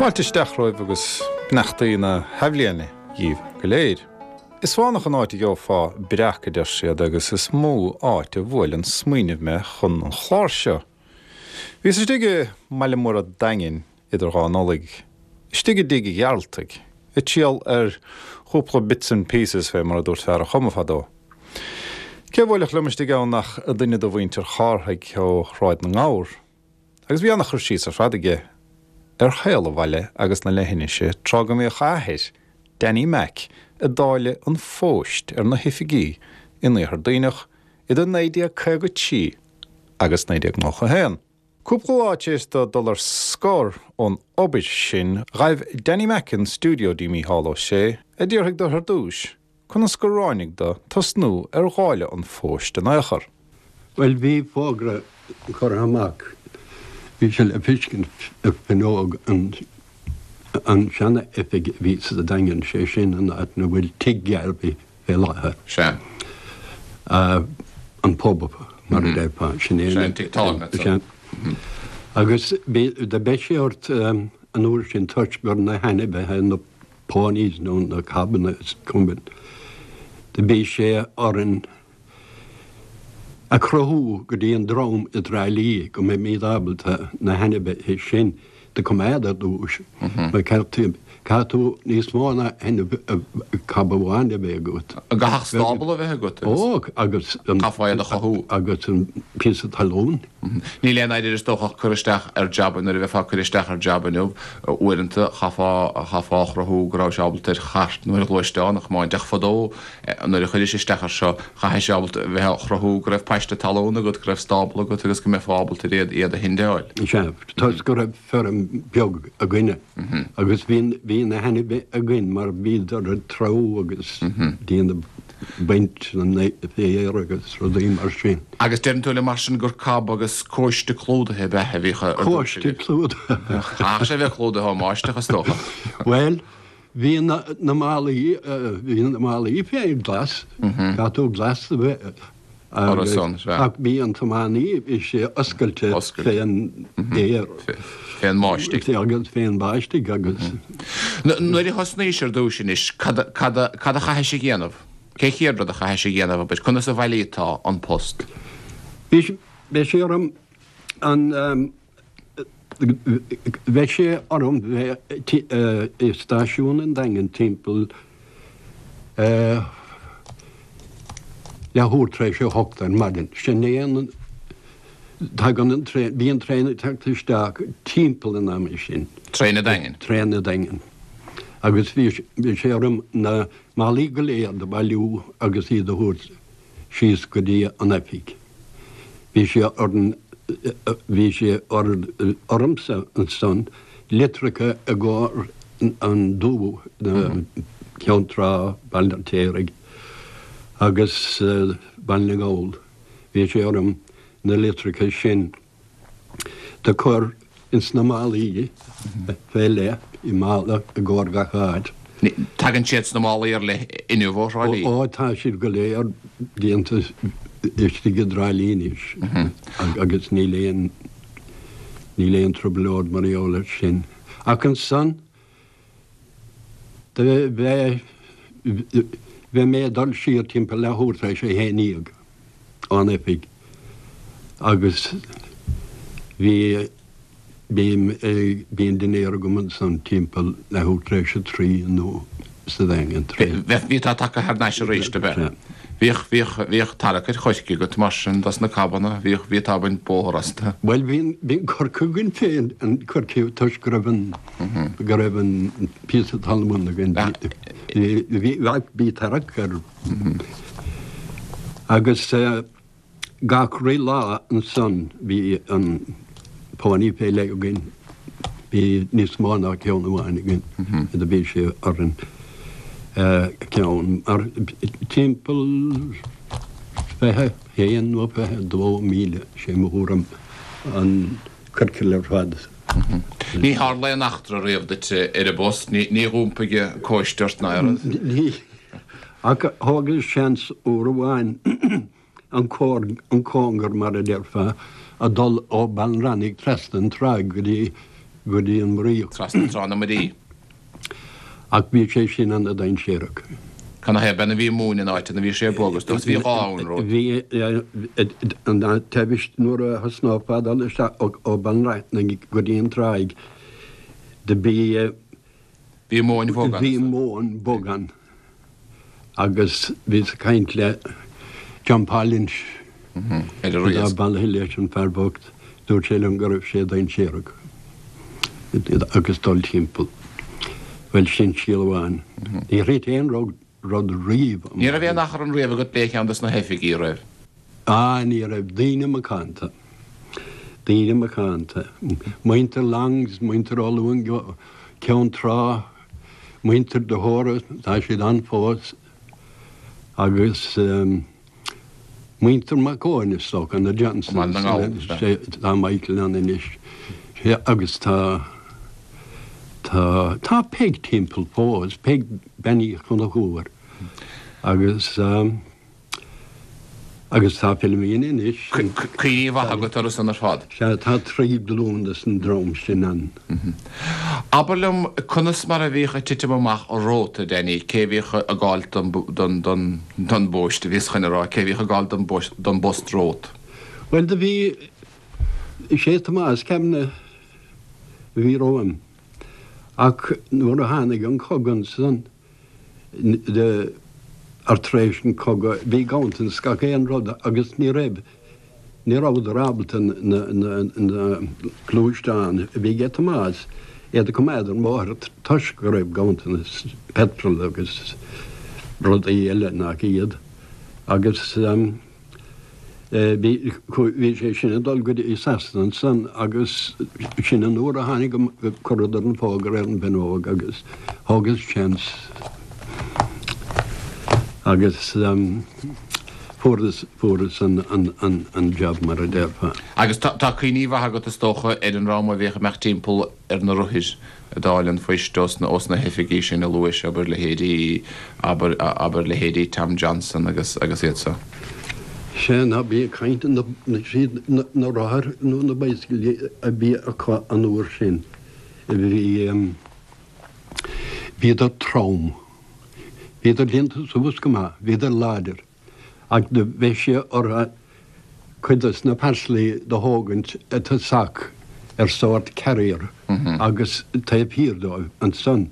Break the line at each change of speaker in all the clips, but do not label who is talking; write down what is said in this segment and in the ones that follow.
Fáilte isteach romhaibh agus beannachtaí na hathbhliana dhíbh go léir. Is fánach an áit a gheofá breac, a deir siad, agus is mó áit a bhuail an smaoineamh mé chun an chláir seo. Bhíos istigh i mbaile mór an Daingin idir dhá Nollaig, istigh i dtigh Ghearaltaigh, ag triall ar chúpla bits and pieces fé mar a dúirt fear an Choma fadó. Cé a bhuailfeadh liom istigh ann ach duine de mhuintir Chárthaigh ó Shráid na nGabhar. Agus bhí ana-chur síos ar fad aige ar shaol an bhaile agus na leithinise tráth go mbíodh a athair, Danny Mac, ag dáileadh an phóist ar na hoifigí in Iarthar Duibhneach idir 1953 agus 1991. Cúpla lá tar éis dó dul ar scor ón obair sin, ghaibh Danny Mac an stiúideo dtí Mícheál Ó Sé, a d'fhiafraigh de ar dtús conas gur ráinig dó tosnú ar dháileadh an phóist in ao' chor.
Bhuel, bhí fógra curtha amach, bhí sé le feiscint ar fuinneog an an seana-oifig a bhí sa Daingean, sé sin an áit 'na bhfuil Tigh Gharvey fé láthair.
Sea.
An pub, mar a déarfá. Sin
é an tigh tábhairne.
Sea. Agus do bheadh sé ort an uair sin toisc gur na hainmhithe, na ponies nó na cabanna is cuma, do bhí sé orainn a chruthú go dtí an dream i dTrá Lí go mbeimíd ábalta na hainmhithe sin do coimeád ar dtús. Mar caithfidh tú níos mó ná cab amháin a bheith agat.
An gcaithfeadh stábla a bheith agat
agus. Ó, agus
an. Chaithfeá iad a chothú.
Agus an píosa talún.
Níl aon oiread is dócha ag cur isteach ar jab nuair a bheifeá ag cur isteach ar jab inniu, uaireanta chaithfeá chaithfeá a chruthú go rabhais ábalta ar chairt nó ar ghluaisteán a chomáint ach fadó Nuair a chuiris isteach air seo, chaithfeá ábalta a bheith á chruthú go raibh paiste talún agat, go raibh stábla agat agus go mbeifeá ábalta ar iad, iad a shendeáil.
Sea, toisc go raibh feirm beag againne agus bhí, bhí na hainmhithe againn mar bhíodar ag treabhadh agus déanamh baint an féir agus rudaí mar sin.
Agus deireann tú liom mar sin gur cab agus cóiste clúdaithe ab ea a bhíodh ar
dtús Cóiste agaibh? clúdaithe.
Chaithfeadh sé a bheith clúdaithe ón mbáisteach is dócha.
Bhuel, Bhí na málaí, bhí na málaí féin glas, caithfidh tú glas a bheith ach bhí an tiománaí, bhí sé oscailte fén aer.
Fén mbáistigh.
Agus fén mbáistigh agus.
Nuair a thosnaís ar dtús anois, cad a chaithis a dhéanamh? Cén chéad rud a chaithis a dhéanamh, abair, conas a bhailítá an post?
Bhí sé orm an. Bheadh sé orm bheith i stáisiún an Daingin timpeall leathuair tar éis a hocht ar maidin. Sin é an, tagann an traein, bíonn traein ag teacht isteach timpeall an ama sin.
Traein an Daingin?
Traein an Daingin. Agus bhí sé orm na málaí go léir do bhailiú agus iad a thabhairt síos go dtí an oifig. Bhí sé orainn, bhí sé ormsa ansan litreacha i gcomhair an Dúiche, Ceann Trá, Baile an Fheirtéaraigh agus Baile na nGall. Bhí sé orm na litreacha sin do chur ins na málaí fé leith, i mála i gcomhair gach áit.
Tagann siad sna málaí ar leith inniu ó Thrá Lí?
Ó, tá siad go léir déanta istigh i dTrá Lí anois agus níl aon, níl aon trioblóid mar gheall air sin. Ach ansan, do bheith, bheith mé ag dul siar timpeall leathuair tar éis a haon dhéag ón oifig agus bhí, bím, bhí an dinnéar agam ansan timpeall leathuair tar éis a trí nó sa Daingean tar
éis. Bhí tú tagtha thar n-ais arís, ab ea? Bhíodh, bhíodh, bhíodh tarrac ar choirce agat mar sin dos na cabanna, bhíodh, bhí tú ag baint bóthar astu.
Bhuel, bhí, bhí an coirce againn féin, an coirce toisc go raibh an, go raibh an píosa talún againn, bhí, bhí, bhí tarrac air. Agus gach re lá ansan bhí an pony fé leith againn, bhí níos mó ná ceann amháin againn, do bhí sé orainn ceann mar timpeall 21 nó 22 míle, sé mo thuairim, an ciorcal ar fad.
Ní tharla aon eachtra riamh duit ar an bpost, ní dh'iompaigh cóiste ort ná aon rud?
Ní, ach thógas seans uair amháin an an cóngar mar a déarfá, a dul ó Ballinrannig trasna an tráigh go dtí. go dtí an Muiríoch.
Trasna Trá na Muirí.
Ach bhí sé sin ana-dainséarach.
Canathaobh b'in a bhí móin in áit ina bhí sé bog is dócha bhí gá ann rud.
Bhí an taobh nuair a thosnófá ag dul isteach ó Bheann Raithin go dtí an tráigh do bhí
Bhí móin bhog ann.
Bhí móin bhog ann agus bhíos ag caint le John Paul Lynch
ar an riasc.
Atá bailithe leis an fear bocht, dúirt sé liom go raibh sé dainséarach agus dul timpeall. Bhuel, sin scéal amháin. Níor thit aon rud riamh
amach. Ní raibh aon achrann riamh agat le ceann dos na hoifigigh, raibh?
Ah, ní raibh. Daoine macánta. Daoine macánta. Muintir Longs, muintir Ó Luain Ceann Trá, muintir de hÓra, tá siad ann fós, agus muintir Mac Eoin, is dócha, na Johnsons, tá Michael ann anois, agus tá, tá, tá Peig timpeall fós, Peig Bean Uí Chonchúir, agus. Agus tá Philomena anois.
Cuimhní mhaith agat orthu san ar fad.
Sea, tá tri glún des an dream sin ann.
Abair liom, conas mar a bhíodh ag titim amach romhat, a Danny, cé a bhíodh ag gabháil don don bpóist, a bhíos chun a rá, cé a bhíodh ag gabháil don bpost romhat?
Bhuel, do bhí, is é Tomás Kavanagh a bhí romham. Ach nuair a tháinig an cogadh ansan, ar tar éis an cogadh bhí ganntanas gach aon rud agus ní raibh, ní rabhadar ábalta na gluaisteáin a bhí ag Tomás iad a coimeád ar an mbóthar toisc go raibh ganntanas petrol agus rudaí eile nach iad agus. Bhí, bhí sé sin ag dul go dtí Sasana ansan agus sin an uair a tháinig, chuireadar an fógra ar an bhfuinneog agus thógas seans agus fuaireas, fuaireas an, an, an, an job mar a déarfá.
Agus tá, tá cuimhní mhaith agat is dócha ar an ndream a bhíodh ag imeacht timpeall ar na rothair ag dáileadh an phoist ós na, ós na hoifigí sin a luais, abair leithéidí, abair, abair leithéidí Tom Johnson agus, agus iad so.
Sea, ná bí ag caint na, na, siad na, na rothair nó na bicyclí a bhí acu an uair sin, bhí, bhíodar trom. Bhíodar déanta suas go maith, bhíodar láidir. Ach do bheadh sé ortha cuid dos na parcelaí do thógaint i dtosach ar sórt carrier agus taobh thiar dóibh ansan.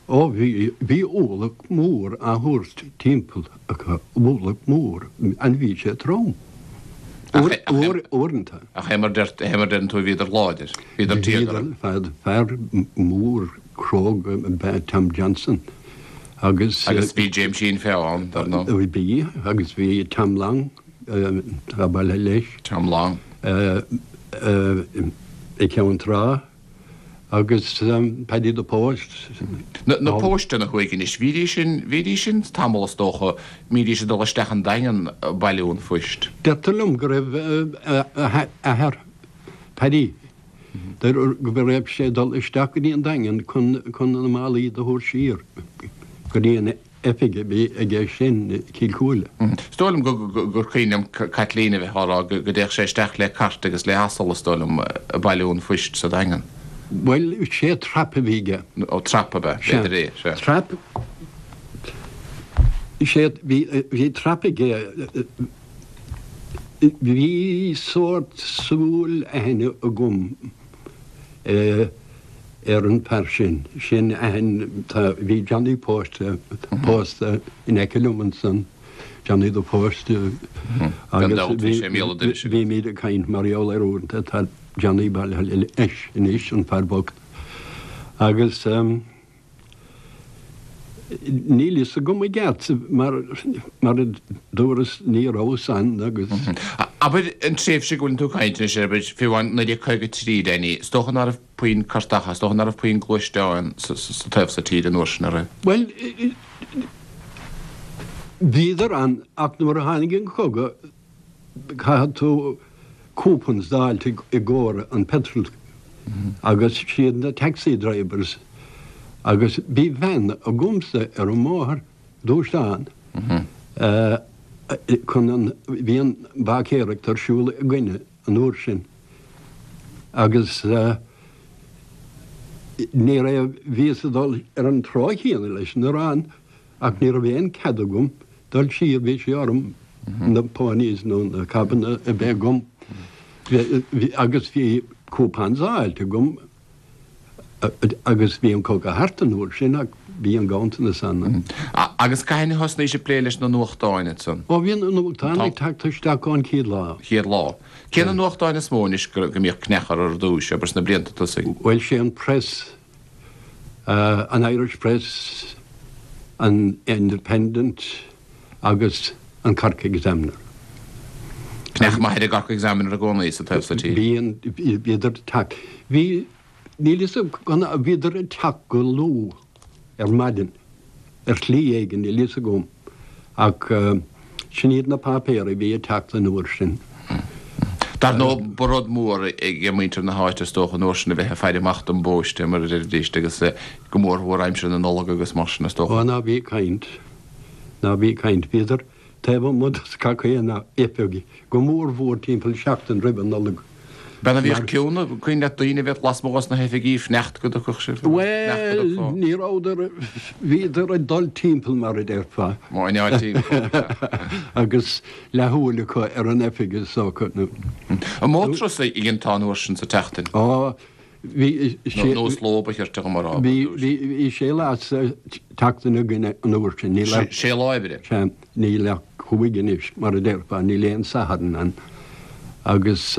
Ó bhí, bhí ualach mór á thabhairt timpeall acu, ualach mór, and bhí sé trom. Uair, uair, uaireanta.
Ach é mar deir, é mar deireann tú, bhíodar láidir, bhíodar
tíogartha. Bhíodar, fear mór cróga ab ea Tom Johnson.
Agus. Agus bhí Jaimsín Feá ann, dar
ndóigh. Bhí, agus bhí Tom Long, atá bailithe leis.
Tom Long.
I gCeann Trá agus Paddy the Post.
Na pósteanna thuaidh anois, bhídís sin, bhídís sin tamall is dócha, mbídís ag dul isteach an Daingean ag bailiú an phoist.
Deirtear liom go raibh a athair, Paddy, Deirtear go raibh sé ag dul isteach go dtí an Daingean chun na málaí do thabhairt siar go dtí an oifig a bhí aige sin i Cill Chúile.
Is dóigh liom gur cuimhin liom Caitlín a bheith á rá go dtéadh sé isteach le cairt agus le hasal, is dóigh liom, ag bailiú an phoist sa Daingean.
Bhuel, sé trap a bhí aige.
Ó, trap ab ea? B'fhéidir é,
sea. Trap, sé, bhí trap aige. Bhí sórt súil aithne agam ar an bhfear sin. Sin aithne, tá, bhí Johnny Post, pósta in aice liom ansan, Johnny the Post,
agus
bhímid ag caint mar gheall air uaireanta, tá Johnny bailithe leis anois, an fear bocht. Agus. Níl fhios agam i gceart, mar mar a dúras ní rabhas ann agus.
Abair an tréimhse go bhfuileann tú ag caint anois air, abair, fiú amháin 1953, Danny, is dócha ná raibh puinn cairteacha, is dócha ná raibh puinn gluaisteáin sa taobh so tíre an uair sin, an raibh?
Bhuel, bhíodar ann ach nuair a tháinig an cogadh, Caithfidh tú coupons d'fháilt i gcomhair an petrol agus siad na taxi drivers agus bhí veain agamsa ar an mbóthar, gluaisteán, chun an, bhí an bháicéireacht ar siúl againne an uair sin agus. Ní raibh, bhíos ag dul ar an trá chéanna leis an arán ach ní raibh aon cead agam dul siar, bhí sé orm na ponies nó na cabanna a bheith agam agus bhí coupons á fháilt agam agus bhí an cogadh thart an uair sin ach bhí an ganntanas ann.
Agus cathain a thosnaís ag plé leis na nuachtáin ansan?
Ó bhí na nuachtáin ag teacht isteach ón chéad lá.
Chéad lá. Cé na nuachtáin is mó anois go mbíodh cneach orthu ar dtúis, abair sna blianta tosaigh?
Bhuel sé an Press, an Irish Press, an Independent agus an Cork Examiner.
Cneach maith ar an gCork Examiner i gcónaí sa taobh so tíre.
Bíonn, bhíodar ag teacht. Bhí, níl fhios agam, bhíodar ag teacht go luath ar maidin, ar shlí éigin, níl fhios agam, ach sin iad na páipéir a bhí ag teacht an uair sin.
Dar ndóigh, ba rud mór ag muintir na háite is dócha an uair sin a bheith ag faire amach don bpóiste, mar a deiridís, agus go mórmhór aimsir na Nollag agus mar sin is dócha.
Ó, ná bí ag caint, ná bí ag caint. Bhíodar taobh amuigh de gach aon oifig, go mórmhór timpeall seachtain roimh an Nollaig.
B'ea a bhíodh ciúin, cuimhin leat daoine a bheadh lasmuigh dos na hoifigí ag fanacht go dtiocfadh sibh?
Bhuel, ní rabhadar, bhíodar ag dul timpeall mar a déarfá.
Máinneáil timpeall,
sea. Agus leathshúil acu ar an oifig is dócha.
An mó turas a dhéantá an uair sin sa tseachtain?
Ó, Bhí sé.
Nó is ló ba chirte dhom a rá.
Bhí sé lá sa tseachtain againn an uair sin. Níl
ach. Sé lá oibre.
Sea. Níl ach chúig anois, mar a déarfá. Níl aon Satharn ann. Agus,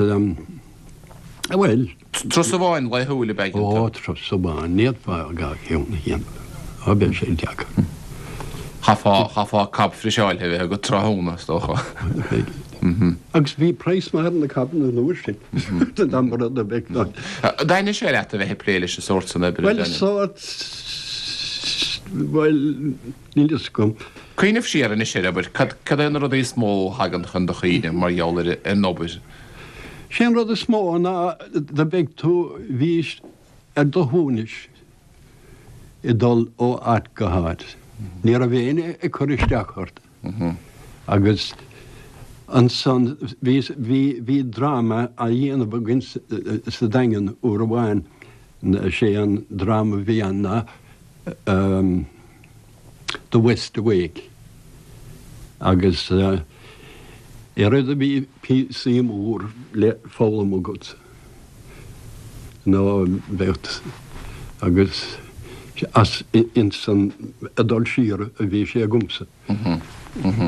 bhuel.
Turas amháin laethúil ab ea
Ó, turas amháin. Ní fhéadfá dhá cheann a dhéanamh. Ó, bheadh sé deacair.
Chaithfeá, chaithfeá cab friseáilte a bheith agat tráthnóna, is dócha.
Agus bhí praghas maith ar na cabanna an uair sin. Dá mba rud a bheadh
ann. An dtaitnigh sé leat a bheith ag plé leis an sórt san oibre,
Bhuel, sórt, bhuel, níl fhios agam.
Cuimhneamh siar anois air, abair, cad, cad é na rudaí is mó a thagann chun do chuimhne mar gheall ar an obair?
Sé an rud is mó ná do bheadh tú, bhís ar do shuaimhneas ag dul ó áit go háit. Ní raibh éinne ag cur isteach ort. Agus ansan bhí, bhí, bhí dráma á dhéanamh againn sa Daingean uair amháin, sé an dráma a bhí ann ná The West Awake. Agus oiread a bhí píosaí mór le foghlaim agat nó bheadh agus as insan ag dul siar a bhí sé agamsa.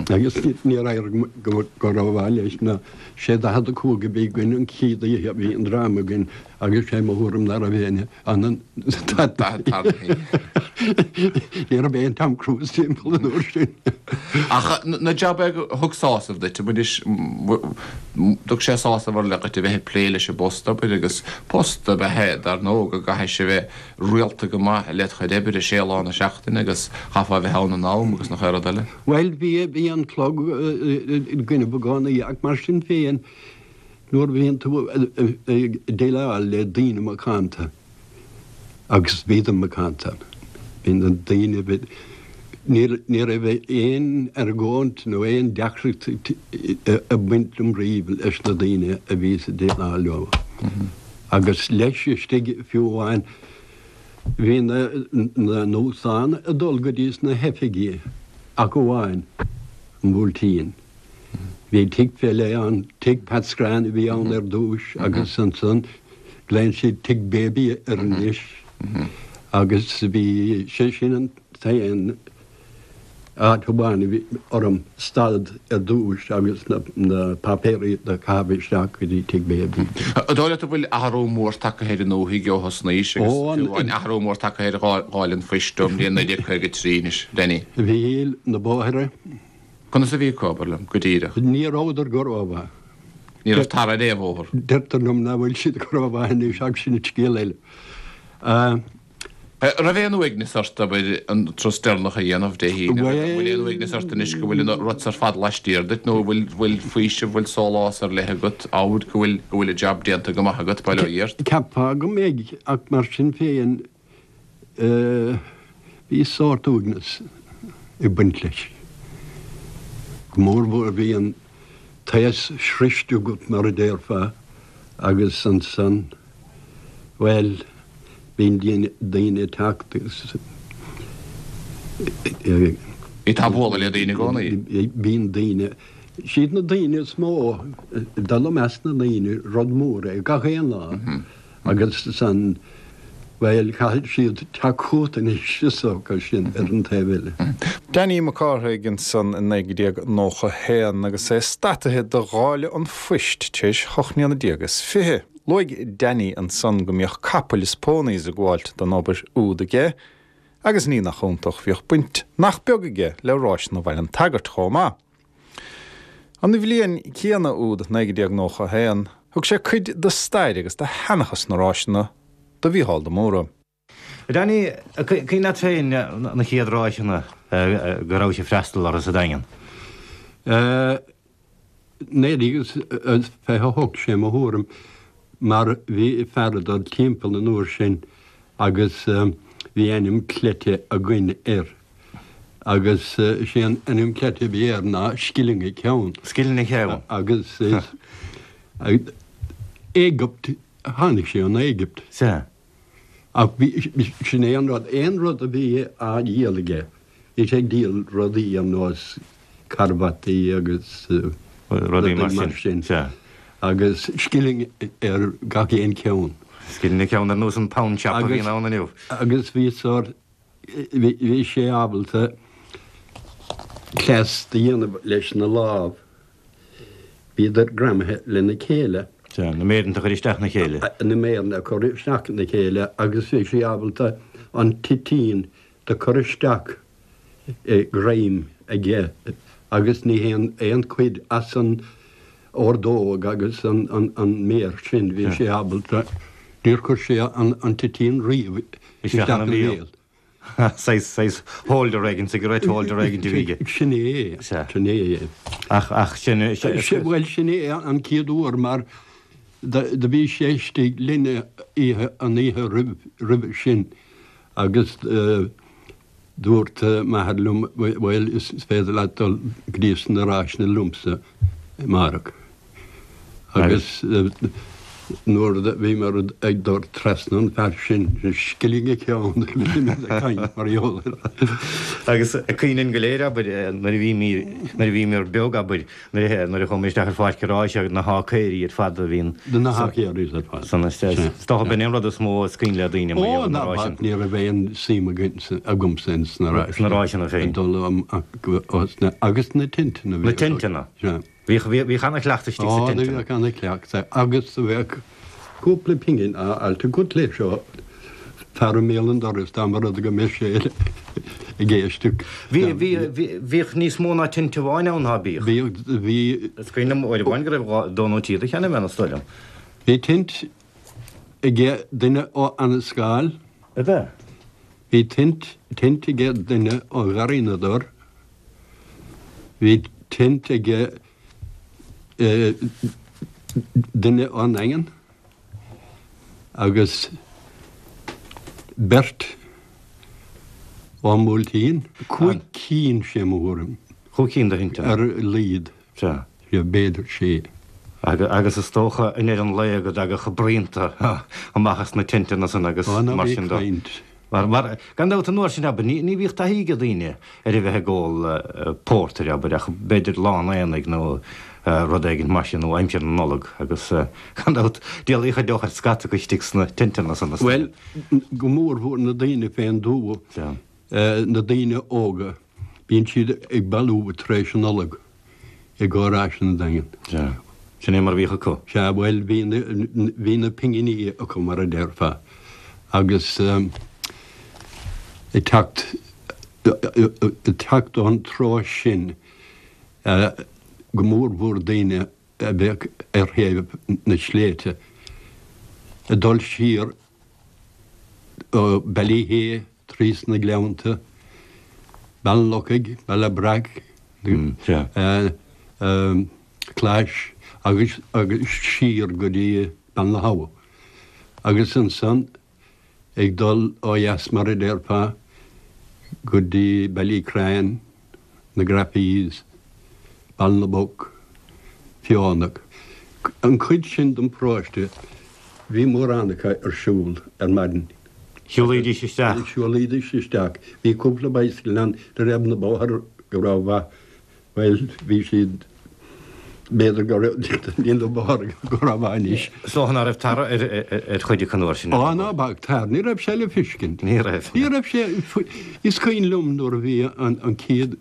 Agus níor éirigh go rómhaith leis ná sé 45 a bhí againn an chéad oíche a bhí an dráma againn agus sé mo thuairim ná raibh éinne ann an Ní raibh aon Tom Cruise timpeall an uair sin.
Ach na jabanna a thug sásamh duit, anois thug sé sásamh ar leith duit a bheith ag plé leis an bpost, abair, agus post ab ea é dar ndóigh go gcaithfidh sé a bheith rialta go maith led chuid oibre, sé lá na seachtaine agus chaithfeá a bheith ann in am agus nach aon rud eile.
Bhuel, bhí, bhí an clog i gcoinnibh i gcónaí ach mar sin féin nuair a bhíonn tú ag déileáil le daoine macánta, agus bhíodar macánta, bhí na daoine, bhí, ní raibh aon argóint nó aon deacracht ag baint liom riamh leis na daoine a bhíos ag déileáil leo. Agus leis istigh fiú amháin bhí na nuachtáin ag dul go dtí sna hoifigí ach amháin an Buailtín. Bhí tigh fé leith ann, tigh Pat Scrann a bhí ann ar dtúis agus ansan glaonn siad tigh Baby air anois agus bhí sé sin an t-aon áit amháin a bhí orm stad ar dtúis agus na páipéirí do chaitheamh isteach go dtí Tigh Baby.
An dóigh leat go bhfuil athrú mór tagtha ar an ndúthaigh ó thosnaís agus fiú amháin athrú mór tagtha ar dháileadh an phoist ó bhliain 1953 anois, Danny?
Bhí na bóithre.
Conas a bhí acu, abair liom, go díreach?
Ní rabhadar go rómhaith.
Ní raibh tar ar aon bhóthar.
Deirtear liom nach bhfuil siad go rómhaith anois ach sin scéal eile.
An raibh aon uaigneas ort, abair, an turas deireanach a dhéanamh Dé hAoine? An bhfuil aon uaigneas ort anois go bhfuil an rud ar fad laistiar duit nó an bhfuil, bhfuil faoiseamh, bhfuil sólás ar leith agat, amhail go bhfuil, go bhfuil an jab déanta go maith agat, bail ó Dhia ort?
Cheapfá go mbeidh, ach mar sin féin, bhí sórt uaigneas ag baint leis. Go mórmhór bhí an t-aos sroiste agat mar a déarfá agus ansan, bhuel. Bíonn daoine ag teacht agus.
Bhí tú ag bualadh le daoine i gcónaí?
Bíonn daoine, siad na daoine is mó, dul i measc na ndaoine, rud mór é gach aon lá agus san, bhuel, caithfidh siad teacht chugat anois is dócha, sin ar an taobh eile.
Danny Mac Cárthaigh ansan i 1991 agus é stataithe do dháileadh an phoist tar éis hocht mbliana déag is fiche. Luaigh Danny ansan go mbíodh capaill is ponies ag gabháilt don obair úd aige agus ní nach iontach bhíodh baint nach beag aige le Ráiseanna Bhaile an tSagairt chomh maith. An bhliain chéanna úd 1991 thug sé cuid de stair agus de sheanchas na ráiseanna do Mhícheál de Mórdha.
Danny, cuimhin leat féin na chéad ráiseanna go rabhais ag freastal orthu sa Daingean?
1928, sé mo thuairim, mar bhí fear ag dul timpeall an uair sin agus bhí ainm cleite againn air agus sé an ainm cleite a bhí air ná Scilling a Ceann.
Scilling a Cheann.
Agus is Éigipt, tháinig sé ón Éigipt.
Sea.
Ach bhí, sin é an rud, aon rud a bhí á dhíol aige, bhí sé ag díol rudaí ar nós carbataí agus
rudaí mar sin,
sea. Agus scilling ar gach aon cheann.
Scilling an ceann ar nós an pound shop a bhíonn ann inniu.
Agus bhí sórt, bhí sé ábalta cleas do dhéanamh leis na lámh. Bhíodar greamaithe lena chéile.
Sea, na méireanta a chur isteach ina chéile.
Na méireanna a chur isteach ina chéile agus bhí sé ábalta an toitín do chur isteach i ngreim aige agus ní haon aon chuid as an ordóg agus an méar sin, bhí sé ábalta, níor chuir sé an toitín riamh isteach ina bhéal.
Saghas, saghas holder éigin, cigarette holder éigin a bhí aige.
Sin é, sin é.
Ach, ach sin,
sin. Bhuel, sin é an chéad uair mar do bhí sé istigh linn oíche, an oíche roimh, roimhe sin agus dúirt m'athair liom, bhuel, is féidir leat dul go dtí sna ráiseanna liomsa amárach. Agus nuair a bhíomar ag dul trasna an fear sin, scilling a cheann, bhíomar ag caint mar gheall air.
Agus cuimhin linn go léir, abair, nuair a bhímir, nuair a bhíomar beag, abair, nuair a, nuair a chuamar isteach ar pháirc an ráis agus na hácaeirí ar fad a bhíonn.
Na hácaeirí ar fad.
San, is dócha b'in é an rud is mó is cuimhin le daoine mar gheall ar na ráiseanna.
Ó, ná bac, ní raibh aon suim againn, agamsa ins na
ráiseanna. Sna ráiseanna féin.
Ag dul amach, agus na tinteanna.
Na tinteanna.
Sea.
Bhíodh, bhíodh ana-chleachtadh istigh sa
Á, do bhíodh ana-chleachtadh agus do bheadh cúpla pingin á fháilt agat leis ó fear i mbéal an dorais dá mba rud go mbeadh sé ag éisteacht.
Bhí, bhí, bhíodh níos mó ná tinte amháin ann, ná bíodh?
Bhíodh, bhí.
Is cuimhin liom uair amháin go raibh dhá, dó nó trí de cheannaigh mé, is dóigh liom.
Bhí tint aige duine ó Annascaul.
Ab ea?
Bhí tint, tint aige duine ó Gharraí na dTor. Bhí tint aige duine ón nDaingean agus beirt ón mBuailtín. Cúig cinn, sé mo thuairim.
Chúig cinn de thinteanna.
Ar a laghad.
Sea.
Sea, b'fhéidir sé.
Agus is dócha i ndeireadh an lae go dtagadh braonta amach as na tinteanna san agus mar sin
de. Ó, ná bí ag caint.
Mar, mar, gan dabht an uair sin, abair, ní, ní bhíodh taithí ag daoine ar a bheith ag ól pórtair, abair, ach b'fhéidir lá an aonaigh nó rud éigin mar sin, nó aimsir na Nollag, agus gan dabht, d'éalaigh chuid deoch ar scata acu istigh sna tinteanna san,
is dóigh. Bhuel, go mórmhór na daoine fén dtuath, na daoine óga, bíonn siad ag bailiú tar éis an Nollag. I gcomhair ráiseanna an Daingin.
Sea. Sin é mar a bhíodh acu.
Sea, bhuel, bhí na, bhí na pinginí acu, mar a déarfá, agus ag teacht, ag teacht ón treo sin, go mórmhór daoine a bheadh ar thaobh na sléibhte, ag dul siar ó Ballyhea trí sna Gleannta, Baile an Lochaigh, Baile Breac, Clais agus agus siar go dtí Beann na hAbha. Agus ansan ag dul ó dheas mar a déarfá go dtí Ballycran, na Graffees, Baile na bPoc, Feonach. An chuid sin den pharóiste, bhí mórán acu ar siúl ar maidin.
Shiúlaídís isteach.
Shiúlaídís isteach. Bhí cúpla bicycle ann, ní raibh na bóithre go rómhaith. Bhuel, bhí siad, b'fhéidir go raibh, níl na bóithre go rómhaith anois.
Is dócha ná raibh tar ar chuid acu an uair sin.
Á, ná bac tar, ní raibh sé le feiscint.
Ní raibh.
Ní raibh sé, is cuimhin liom nuair a bhí an chéad,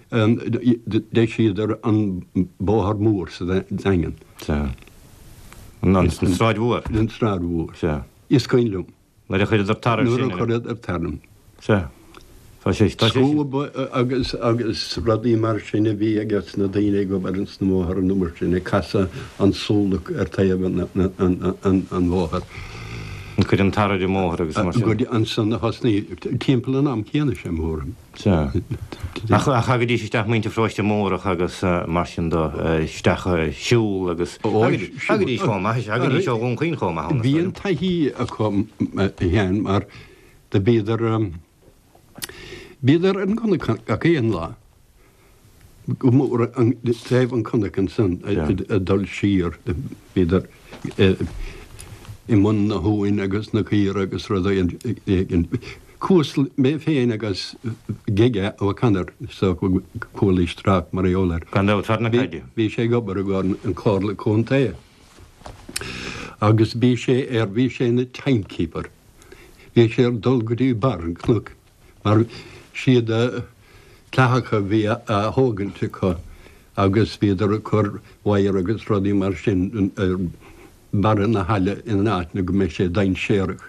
d'eisíodar an bóthar mór sa Daingean.
Sea. An tSráid Mhór.
An tSráid Mhór.
Sea.
Is cuimhin liom.
Nuair a chuireadar tar air sin.
Nuair a chuireadar tar ann.
Sea. Tá sé, tá sé sin.
Scuab agus, agus rudaí mar sin a bhí ages na daoine ag obair ins na bóithre an uair sin, ag casadh an súlach ar taobh an, an, an, an bhóthair.
Ag cur an tar ar an mbóthar agus mar sin.
Go dtí ansan a thosnaigh, timpeall an am céanna sé mo thuairim.
Sea. Ach thagaidís isteach muintir Pharóiste Mórdhach agus mar sin de, isteach siúl agus thagaidís chomh maith, thagaidís ó Dhún Chaoin chomh maith ann.
Bhí an taithí acu a Sheáin mar do bhíodar, bhíodar ar an gcnoc gach aon lá, go mór taobh an chnoic ansan ag dul siar, bhíodar i mbun na huain agus na caora agus rudaí éigin. Chuas mé féin agus Gige O'Connor, is dócha go chualaís trácht mar gheall air.
Gan dabht, fear na caide.
Bhí sé ag obair i gcomhair an Chomhairle Contae agus bhí sé ar, bhí sé ina timekeeper. Bhí sé ar dul go dtí barr an chnoic mar siad clathacha a bhí á thógaint acu agus bhíodar ag cur wire agus rudaí mar sin ar barra na haille in áit go mbeidh sé dainséarach.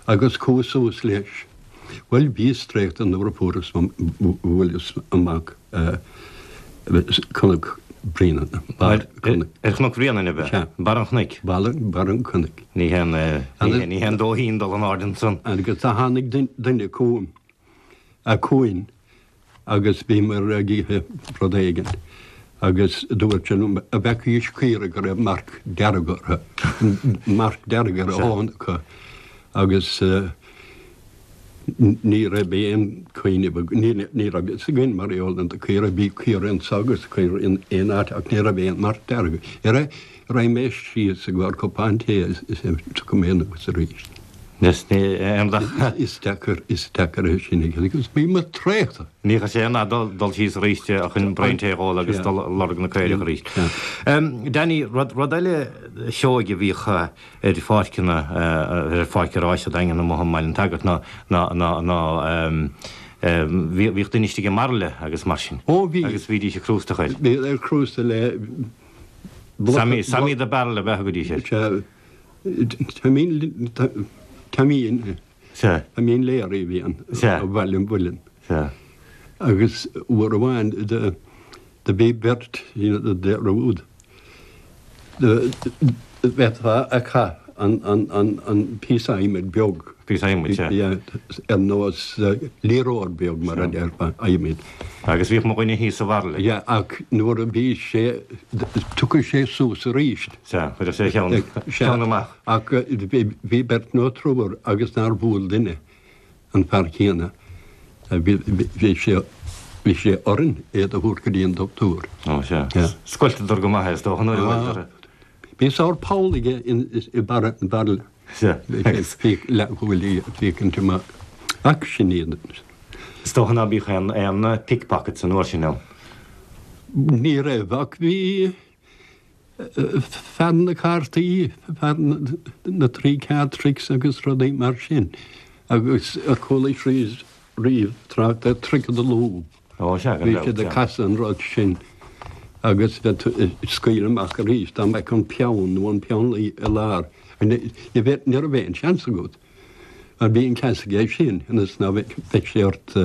Agus chuas suas leis. Bhuel, bhíos traochta nuair a fuaireas, bhuaileas amach Cnoc Bréanainn,
barr Chnoic. Ar Chnoc Bhréanainn, ab ea?
Sea.
Barr an chnoic?
Barr, barr an chnoic.
Ní haon, ní haon dóithín dul in airde ansan.
Agus do tháinig duine chugam, chugainn, agus bhíomar ag ithe rud éigin agus dúirt sé liom an bhfeacaís caora go raibh marc dearg orthu, marc dearg ar a thóin acu agus ní raibh aon chuimhneamh, ní raibh fhios againn mar gheall ar na caora, bhí caora anso agus caora in aon áit ach ní raibh aon marc dearg. Raghaidh mé síos i gcomhair cupán tae is tiocfaidh mé anuas arís.
Is ní aon dath.
Is deacair, is deacair é sin a dhéanamh agus bhí mé traochta.
Ní raibh sé in ann dul síos arís chun braon tae a dh'ól agus dul ag lorg na caorach arís. Danny, rud, rud eile seoigh a bhíodh ar pháirceanna, ar pháirc an ráis sa Daingean amuigh i mBaile an tSagairt ná, ná, ná, ná bhíodh duine istigh i mbairille agus mar sin.
Ó bhí.
Agus bhídís ag crústach air.
Bhí ag crústach le
Sammy, Sammy the Barrel ab ea a thugaidís air.
Sea. Taimín, Taimín,
Sea.
Taimín Leary a bhí ann.
Sea.
Ó Bhaile an Mhuilinn.
Sea.
Agus uair amháin do, do bhí beirt dearúd. Do, bheifeá ag caitheamh an, an, an, an píosa adhmaid beag.
Píosa adhmaid, sea.
Yeah, ar nós liathróid beag mar a déarfá, adhmaid.
Agus bhíodh mo dhuine thíos sa bhairille.
Yeah, ach nuair a bhí sé, tiocfadh sé suas arís.
Sea, chuirfeadh sé a cheann, cheann amach.
Ach bhí beirt nó triúr agus nár bhuail duine an fear céanna. Bhí sé, bhí sé orainn é do thabhairt go dtí an dochtúir.
Ó, sea. Scoilteadar go maith é, is dócha, nuair a bhuaileadar é.
Bhí sórt poll aige i mbarra an bhairille.
Sea.
Bhí leathshúil ag féachaint amach. Ach sin iad.
Is dócha ná bíodh aon aon pickpockets an uair sin ann.
Ní raibh, ach bhí fear na cártaí, fear na three card tricks agus rudaí mar sin. Agus ar chualaís riamh trácht ar trick of the loo.
Ó, sea, gan
Bhí
dabht,
siad ag
sea.
casadh an rud sin agus bheith tú ag scaoileadh amach arís dá mbeadh an peann nó an peannluí i lár. Ní bheadh, ní raibh aon seans agat. Mar bhí an ceas aige sin ionas ná bheadh sé ort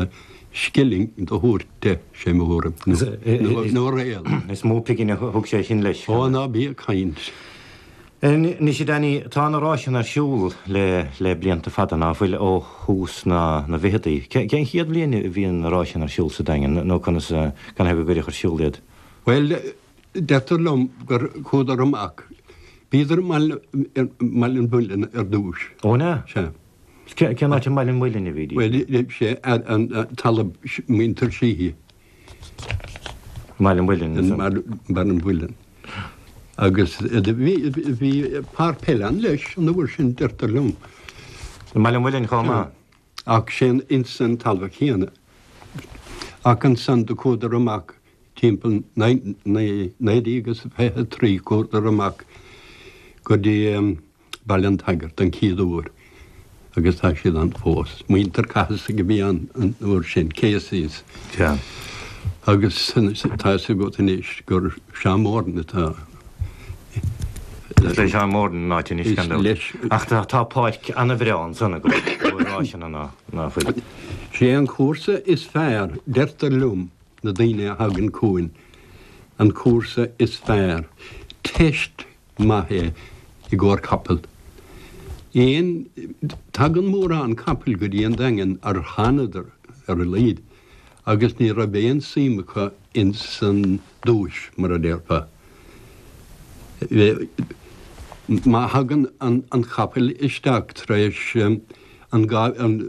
scilling do thabhairt de, sé mo thuairim, nó, nó réal.
Is mó pingin a thug sé sin leis.
Ó, ná bí ag caint.
Anois, a Danny, tá na ráiseanna ar siúl le le blianta fada, ná fuil, ó thús na na bhficheadaí. Cén chéad bhliain a bhí na ráiseanna ar siúl sa Daingean, nó conas, canathaobh a cuireadh ar siúl iad?
Bhuel, deirtear liom gur chuadar amach, bhíodar i mBaile an Mhuilinn ar dtúis.
Ó, an ea?
Sea.
Cén áit i mBaile an Mhuilinn a bhídís?
Bhuel, sé an talamh muintir Sheehy.
Baile an Mhuilinn.
Baile an Mhuilinn. Agus bhí fear peile ann leis an uair sin, deirtear liom.
I mBaile an Mhuilinn chomh maith.
Ach sin ins an talamh chéanna. Ach ansan do chuadar amach timpeall 1923 chuadar amach go dtí Baile an tSagairt an chéad uair agus tá siad ann fós. Muintir Cathasaigh a bhí ann an uair sin, Caseys. Agus tá fhios agat anois gur Seán Moran atá.
Is le Seán Moran an áit anois gan dabht. Ach tá páirc an-bhreá ansan i gcomhair ráiseanna ná fuil.
Sé an cúrsa is fearr, deirtear liom, na daoine a thagann chugainn, an cúrsa is fearr. Teist maith é i gcomhair capall. Aon, tagann mórán capaill go dtí an Daingean ar thánadar ar a laghad agus ní raibh aon suim acu ins an duais, mar a déarfá. Má thagann an capall isteach tar éis an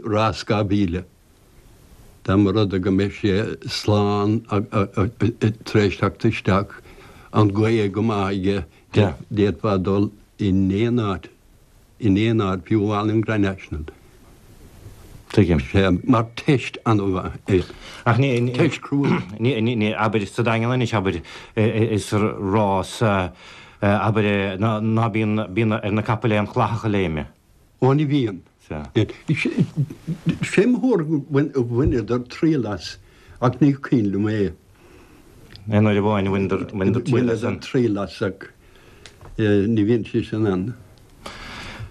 rás 2000, Dá mba rud é go mbeidh sé slán tar éis teacht isteach, an ghaoth go maith aige, d'fhéadfá dul in aon áit, in aon áit, fiú amháin an Grand National.
Tuigim.
Sea, mar teist an-mhaith é.
Ach ní,
Teist chrua.
ní, ní, ní, abair sa Daingean anois, abair, is rás, abair, ná bíonn, bíonn ar na capaill aon chlathach a léimeadh.
Ó ní bhíonn.
Sea.
Sé mo thuairim gur bhaineadar triail as, ach ní cuimhin liom é.
Aon uair amháin a bhaineadar triail as.
Bhaineadar triail as ach ní bhíonn sé sin ann.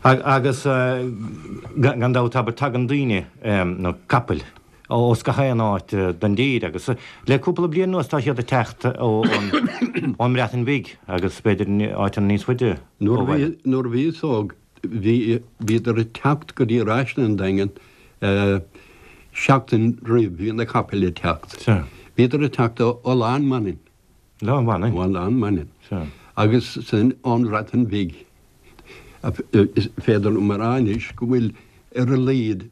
Agus gan dabht, abair, tagann daoine, nó capaill, ós gach aon áit den dtír agus le cúpla bliain anuas tá siad ag teacht ón mBreatain Bhig agus b'fhéidir áiteanna níos faide
ó bhaile. Nuair a bhíos óg Bhí, bhíodar ag teacht go dtí ráiseanna an Daingin seachtain roimh, bhí na capaill ag teacht.
Sea.
Bhíodar ag teacht ó Oileán Manainn.
Oileán Manainn?
Ó Oileán Manainn.
Sea.
Agus san ón Bhreatain Bhig. Is féidir liom a rá anois go bhfuil ar a laghad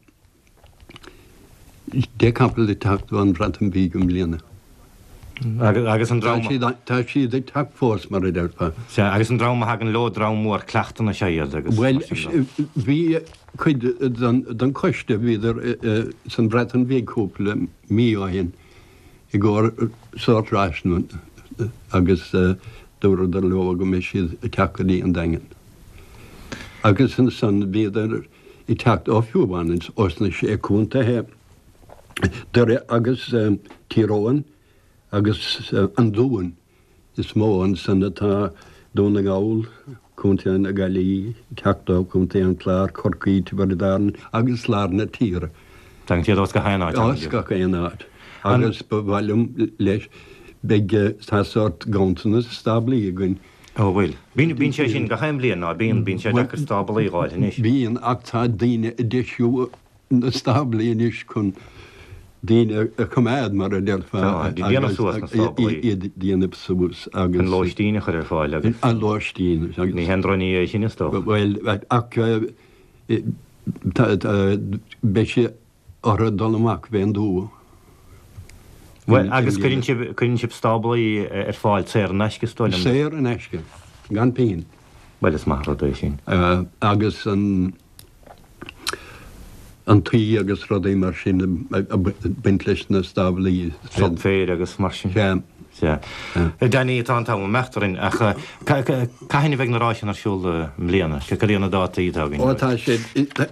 10 capall ag teacht ón Bhreatain Bhig i mbliana.
Agus an dream.
Tá siad ag teacht fós, mar a déarfá.
Sea, agus an dream a thagann leo, dream mór cleachtanna is ea iad agus.
Bhuel, bhí cuid den choiste, bhíodar san Bhreatain Bhig cúpla mí ó shin i gcomhair sórt ráiseanna agus dúradar leo go mbeidh siad ag teacht go dtí an Daingean. Agus ansan bhíodar ag teacht ó fiú amháin ós na Sé Contaethe, Doire agus Tír Eoghain agus an Dún is mó ansan atá Dún na nGall, Contae na Gaillimhe, ag teacht ó Chontae an Chláir, Corcaigh, Tiobraid Árann agus lár na tíre.
Tagann siad ós gach aon áit.
Ós gach aon áit. Agus ba mhaith liom leis, beidh, tá sórt ganntanas stáblaí againn.
Ó bhfuil. Bíonn, bíonn sé sin gach aon bhliain, ná bíonn, bíonn sé deacair stáblaí a dh'fháil anois.
Bíonn, ach tá daoine ag deisiú na stáblaí anois chun daoine a choimeád, mar a déarfá.
Tá, déanamh suas na stáblaí.
Iad déanamh suas
agus. An lóistín a chur ar fáil
agus. An lóistín
agus. Ní haon drochní é sin is dócha.
Bhuel, ach tá, beidh sé orthu dul amach fén dtuath.
Bhuel, agus cuireann sibh, cuireann sibh stáblaí ar fáil saor in aisce, is dóigh liom?
Saor in aisce, gan pingin.
Bhuel, is maith an rud é sin.
Agus an, an tuí agus rudaí mar sin ag baint leis na stáblaí.
Sop féir agus mar sin.
Sea.
Sea. Danny, tá an t-am ag imeacht orainn, ach cathain a bheidh na ráiseanna ar siúl i mbliana? Cad iad na dátaí atá
againn? Ó tá sé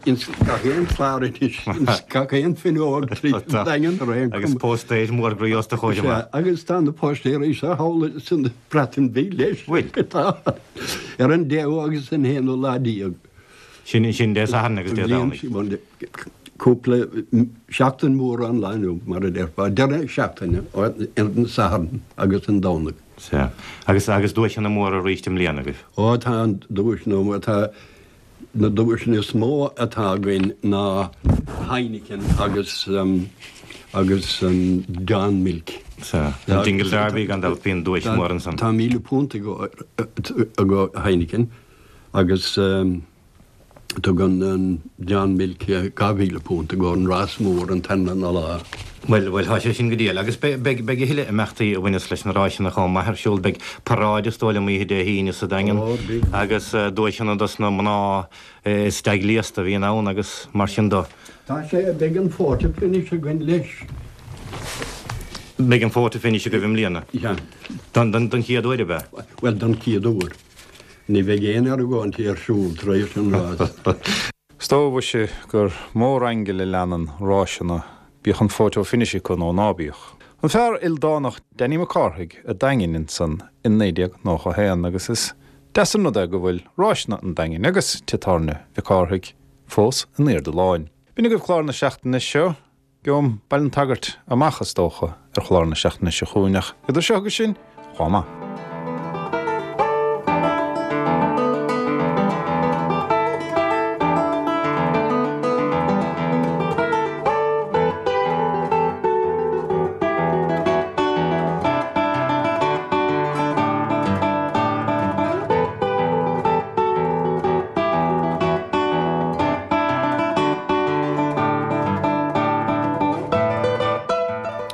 ins gach aon chlár anois, ins gach aon fhuinneog tríd an Daingean
ar aon chuma. Agus póstaeir mór groí os do chomhair
amach. Sea, agus tá na póstaeirí seo thall san Bhreatain Bhig leis.
Bhfuil?
Tá. Ar an deichiú agus an haonú lá déag.
Sin, sin Dé Sathairn agus Dé Domhnaigh.
Cúpla seachtain mór ón lá inniu, mar a déarfá, deireadh seachtaine, ar an Satharn agus an Domhnach.
Sea. Agus, agus duaiseanna móra arís i mbliana agaibh?
Ó, tá an duaiseanna móra, tá, na duaiseanna is mó atá againn ná Heineken agus, agus an Dawn Milk.
Sea. An Dingle Derby gan dabht, bíonn duais mhór ansan.
Tá £1,000 ag Heineken agus. Tugann an John Milk £2,000 i gcomhair an rás mór an t-aon lá.
Bhuel, bhuel, tá sé sin go diail. Agus beidh, beidh, beidh a thuilleadh imeachtaí a bhaineas leis na ráiseanna chomh maith ar siúl. Beidh paráid is dóigh liom oíche Dé hAoine sa Daingean
Ó, beidh.
agus duaiseanna dos na mná is dea-ghléasta a bhíonn ann agus mar sin do.
Tá sé, beidh an photo finish againn leis.
Beidh an photo finish agaibh i mbliana?
Yeah.
Don, don, don chéad uair, ab ea?
Bhuel, don chéad uair. Ní bheidh aon argóintí ar siúl tar éis an rás.
Is dóigh mhuise gur mór aingle a leanann ráiseanna, bíodh an photo finish acu nó ná bíodh. An fear ildánach Danny Mac Cárthaigh a' Daingin ansan in 1991 agus is deas an rud é go bhfuil ráiseanna an Daingin agus Tigh Tábhairne Mhic Cárthaigh fós in airde láin. B'in agaibh clár na seachtaine seo. Gheobhaim Baile an tSagairt amach, is dócha, ar chlár na seachtaine seo chugainn, ach idir seo agus sin, chomh maith.